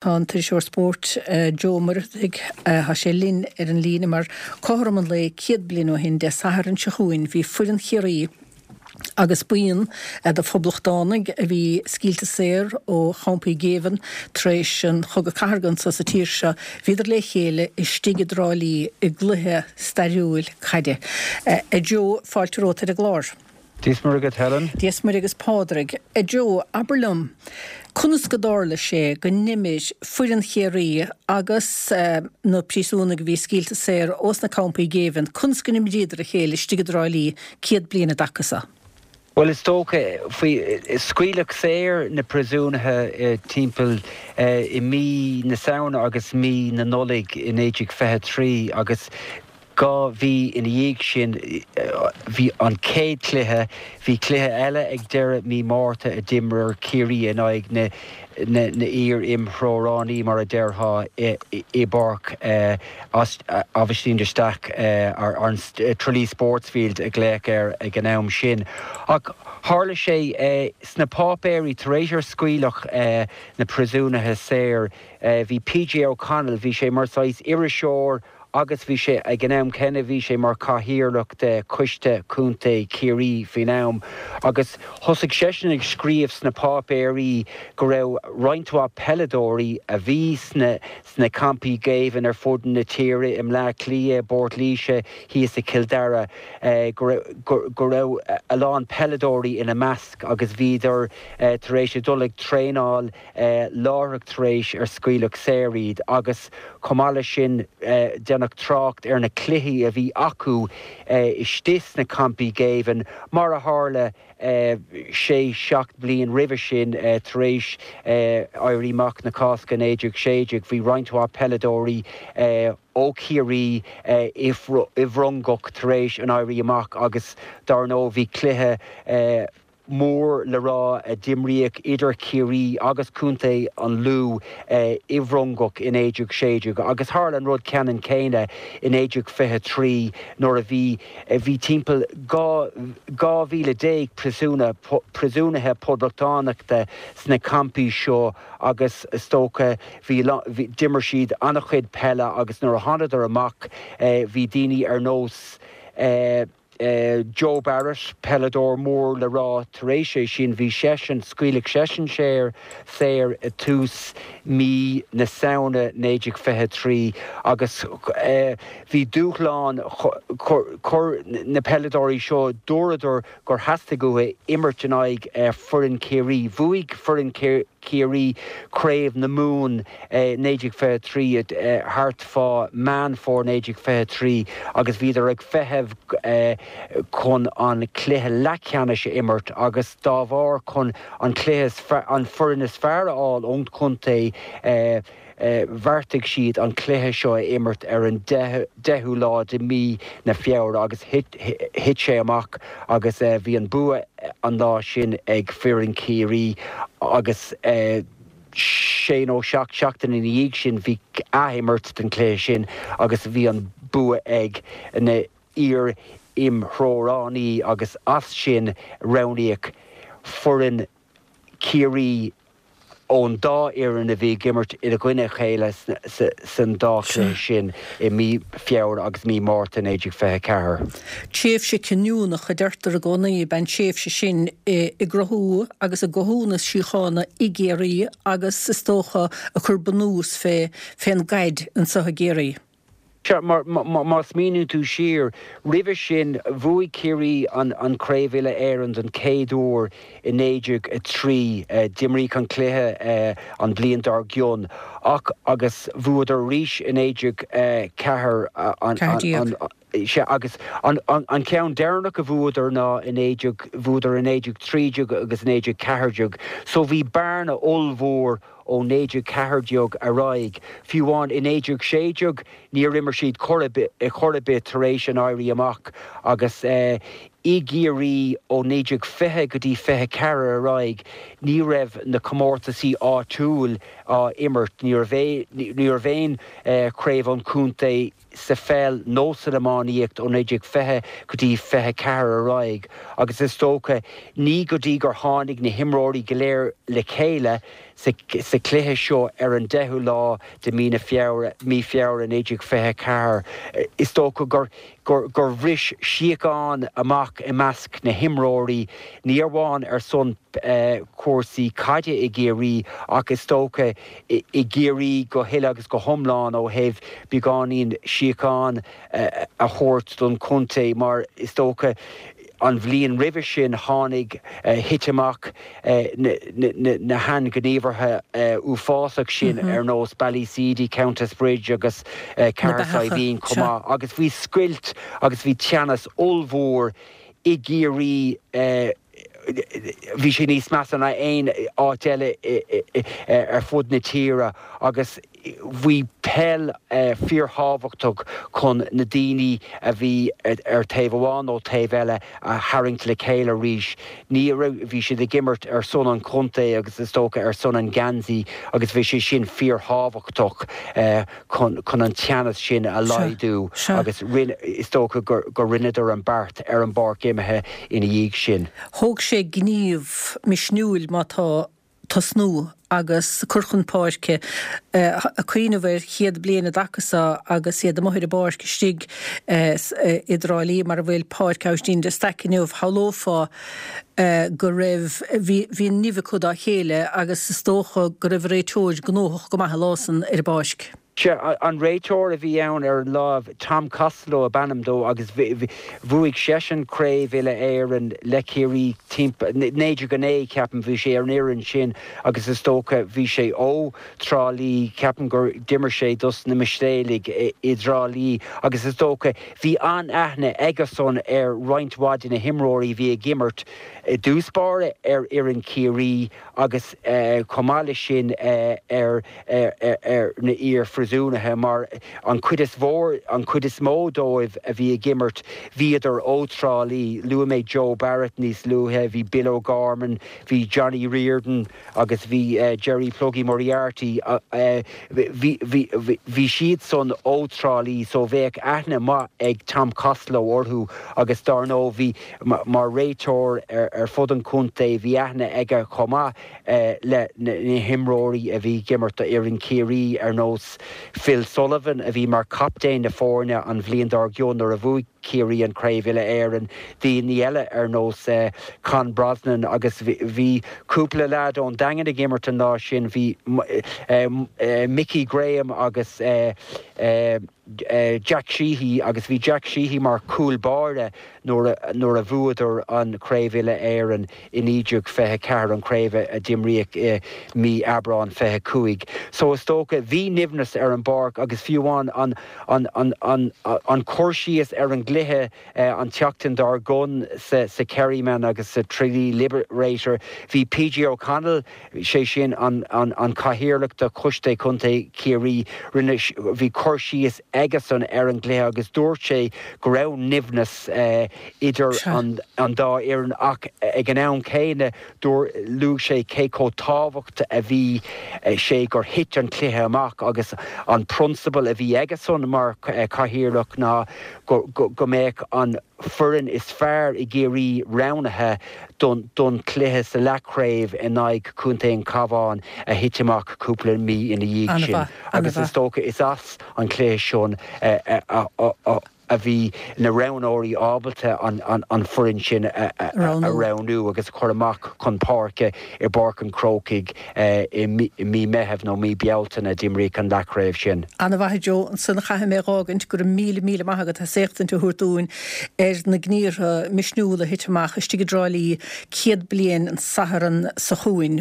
Tá an t-iriseoir spóirt Joe Ó Muircheartaigh, tá sé linn ar an líne mar cothrom an lae 100 bliain ó shin Dé Sathairn seo chugainn bhí foireann Chiarraí agus buíon de phoblachtánaigh a bhí scaoilte saor ó champaí géibhinn tar éis an Chogadh Cathartha anso sa tír seo, bhíodar le chéile istigh i dTrá Lí i gcluiche stairiúil caide. A Joe, fáilte romhat ar an gclár. Dia is Muire agat Helen. Dia is Muire agus Pádraig. A Joe, abair liom, conas go dtarla sé go n-imir foireann Chiarraí agus na príosúnaigh a bhí scaoilte saor ós na campaí géibhinn, conas go n-imríodar a chéile istigh i dTrá Lí 100 bliain i dtaca so? Bhuel, is dócha, faoi, scaoileadh saor na príosúnaithe timpeall i mí na Samhna agus mí na Nollag i 1923 agus 2 mhí ina dhiaidh sin bhí an chéad chluiche, bhí cluiche eile ag deireadh mí Márta a d'imir Ciarraí in aghaidh na n-iar-imthreoránaí mar a déarfá i bPáirc Aibhistín de Staic, an Tralee Sportsfield a glaodh air ag an am sin. Ach tharla sé sna páipéirí tar éis ar scaoileadh na príosúnaithe saor, bhí PJ O'Connell, bhí sé mar saghas iriseoir, agus bhí sé, ag an am céanna, bhí sé mar chathaoirleach de Choiste Contae Chiarraí faoin am, agus thosaigh seisean ag scríobh sna páipéirí go raibh roinnt mhaith peileadóirí a bhí sna sna campaí géibhinn ar fud na tíre, i mBleá Cliath, i bPort Laoise, thíos i Cill Dara, go raibh go raibh a lán peileadóirí ina measc agus bhíodar tar éis a dul ag traenáil láithreach tar éis ar scaoileadh saor iad agus chomh maith leis sin déanadh trácht ar na cluichí a bhí acu istigh sna campaí géibhinn mar a tharla sé seacht mbliain roimhe sin tar éis Éirí Amach na Cásca 1916 bhí roinnt mhaith peileadóirí ó Chiarraí i bhFrongoch tar éis an Éirí Amach agus dar ndóigh bhí cluiche mór le rá a d'imríodh idir Ciarraí agus Contae an Lú i bhFrongoch i 1916 agus tharla an rud ceannann céanna i 1923 nuair a bhí bhí timpeall 12,000 príosúnach príosúnaithe poblachtánachta sna campaí seo agus is dócha bhí d'imir siad an-chuid peile agus nuair a thánadar amach bhí daoine ar nós Joe Barrett, peileadóir mór le rá, tar éis é sin bhí seisean, scaoileadh seisean saor, saor i tús mí na Samhna 1923 agus bhí dúshlán, chuir na peileadóirí seo, dúradar gur theastaigh uathu imirt in aghaidh foireann Chiarraí. Bhuaigh foireann Chiarraí Craobh na Mumhan 1923 thart fá Meán Fómhair 1923 agus bhíodar ag feitheamh chun an cluiche leathcheannais a imirt agus dá bharr chun an cluiche an foireann is fearr a fháil ón chontae bheartaigh siad an cluiche seo a imirt ar an 10ú lá de mí na Feabhra agus thit sé amach agus bhí an bua an lá sin ag foireann Chiarraí agus sé nó seacht seachtain ina dhiaidh sin bhí athimirt den chluiche sin agus bhí an bua ag na iar-imthreoránaí agus as sin roghnaíodh foireann Chiarraí ón dá fhoireann a bhí ag imirt i gcoinne a chéile san dá chluiche sin i mí Feabhra agus mí Márta 1924. Tréimhse cinniúnach, a deirtear i gcónaí, ab ea an tréimhse sin i gcruthú agus i gcothú na síochána i gCiarraí agus, is dócha, ag cur bunús fé fén gcaid anso i gCiarraí. Sea, mar má smaoiníonn tú siar, roimhe sin, bhuaigh Ciarraí an Chraobh Uile-Éireann don chéad uair i 1903. D'imríodh an cluiche an bhliain dár gcionn ach agus bhuadar arís i 1904 an. Sea, agus an ceann deireanach a bhuadar ná i 19, bhuadar i 1913 agus 1914. So bhí bearna ollmhór ó 1914 ar aghaidh. Fiú amháin i 1916 níor imir siad chor ar bith tar éis an Éirí Amach agus. I gCiarraí ó 1920 go dtí 24 ar aghaidh ní raibh na comórtasaí áitiúil á imirt, ní raibh ní raibh aon chraobh an chontae sa pheil nó san iománaíocht ó 1920 go dtí 24 ar aghaidh agus is dócha ní go dtí gur tháinig na himreoirí go léir le chéile sa chluiche seo ar an 10ú lá de mí na Feabhra, mí Feabhra 1924 is dócha gur gur bhris síocháin amach i measc na himreoirí, ní amháin ar son cúrsaí caide i gCiarraí ach is dócha i gCiarraí go huile agus go hiomlán ó thaobh beagáinín síocháin a thabhairt don chontae mar is dócha an bhliain roimhe sin tháinig, thit amach na hainghníomhartha uafásach sin ar nós Ballyseedy, Countess Bridge agus Cathair Saidhbhín chomh maith agus bhí scoilt agus bhí teannas ollmhór i gCiarraí, bhí sé níos measa ná aon áit eile ar fud na tíre agus bhí peil fíorthábhachtach chun na daoine a bhí ar taobh amháin nó taobh eile a tharraingt le chéile arís. Ní raibh, bhí siad ag imirt ar son an chontae agus is dócha ar son an gheansaí agus bhí sé sin fíorthábhachtach chun chun an teannas sin a laghdú agus rinne, is dócha gur gur rinneadar an beart ar an bpáirc imeartha ina dhiaidh sin. Thóg sé gníomh misniúil má tá tosnú agus cur chun páirce, ag cuimhneamh ar chéad bliain i dtaca so agus iad amuigh ar an bpáirc istigh i dTrá Lí mar a bhfuil Páirc Aibhistín de Staic inniu, shamhlófá go raibh, bhí, bhí an nimh acu dá chéile agus is dócha go raibh an réiteoir gnóthach go maith an lá san ar an bpáirc. Sea, an réiteoir a bhí ann ar an lá, Tom Costello ab ainm dó agus bhuaigh seisean Craobh Uile-Éireann le Ciarraí timpeall, 1909 ceapaim, bhí sé ar an fhoireann sin agus is dócha bhí sé ó Trá Lí, ceapaim gur d'imir sé dos na Mistéalaigh i dTrá Lí agus is dócha bhí an-aithne aigesan ar roinnt mhaith de na himreoirí a bhí ag imirt i dtús báire ar fhoireann Chiarraí agus chomh maith leis sin ar ar na iar-phríosúnaithe mar an chuid is mhór, an chuid is mó dóibh a bhí ag imirt, bhíodar ó Trá Lí. Luaigh mé Joe Barrett níos luaithe, bhí Bill O'Gorman, bhí Johnny Riordan agus bhí Jerry Pluggy Moriarty, bhí, bhí, bhí siadsan ó Trá Lí so bheadh aithne maith ag Tom Costello orthu agus dár ndóigh bhí, mar réiteoir ar fud an chontae, bhí aithne aige chomh maith le na himreoirí a bhí ag imirt do fhoireann Chiarraí ar nós Phil Sullivan a bhí mar chaptaen na foirne an bhliain dár gcionn nuair a bhuaigh Ciarraí an Chraobh Uile-Éireann, daoine eile ar nós Con Brosnan agus bhí cúpla leaid ón Daingean ag imirt an lá sin, bhí Mickey Graham agus Jack Sheehy agus bhí Jack Sheehy mar chúl báire nuair nuair a bhuadar an Chraobh Uile-Éireann i 1924, an chraobh a d'imríodh i mí Aibreán 25. So is dócha, bhí nimhneas ar an bpáirc agus fiú amháin an an an an an cur síos ar an gcluiche an tseachtain dár gcionn sa sa Kerryman agus sa Tralee Liberator, bhí PJ O'Connell, sé sin an an cathaoirleach de Choiste Contae Chiarraí, rinne, bhí cur síos aigesan ar an gcluiche agus dúirt sé go raibh nimhneas idir an an dá fhoireann ach ag an am céanna dúirt, luaigh sé cé chomh tábhacht a bhí sé gur thit an cluiche amach agus an prionsabal a bhí aigesan mar chathaoirleach ná go go mbeadh an foireann is fearr i gCiarraí roghnaithe don chluiche sa leathchraobh in aghaidh Chontae an Chabháin a thit amach cúpla mí ina dhiaidh sin agus is dócha is as an chluiche sin a bhí na roghnóirí ábalta an foireann sin a roghnú agus a chur amach chun páirce i bPáirc an Chrócaigh i mí Meithimh nó mí Bealtaine a d'imríodh an leathchraobh sin. Ana-mhaith a Joe, ansan chaithfidh mé a dh'fhágaint, go raibh míle míle maith agat as éachtaint a thabhairt dúinn ar na gníortha misniúla a thit amach istigh i dTrá Lí 100 bliain an Satharn so chugainn.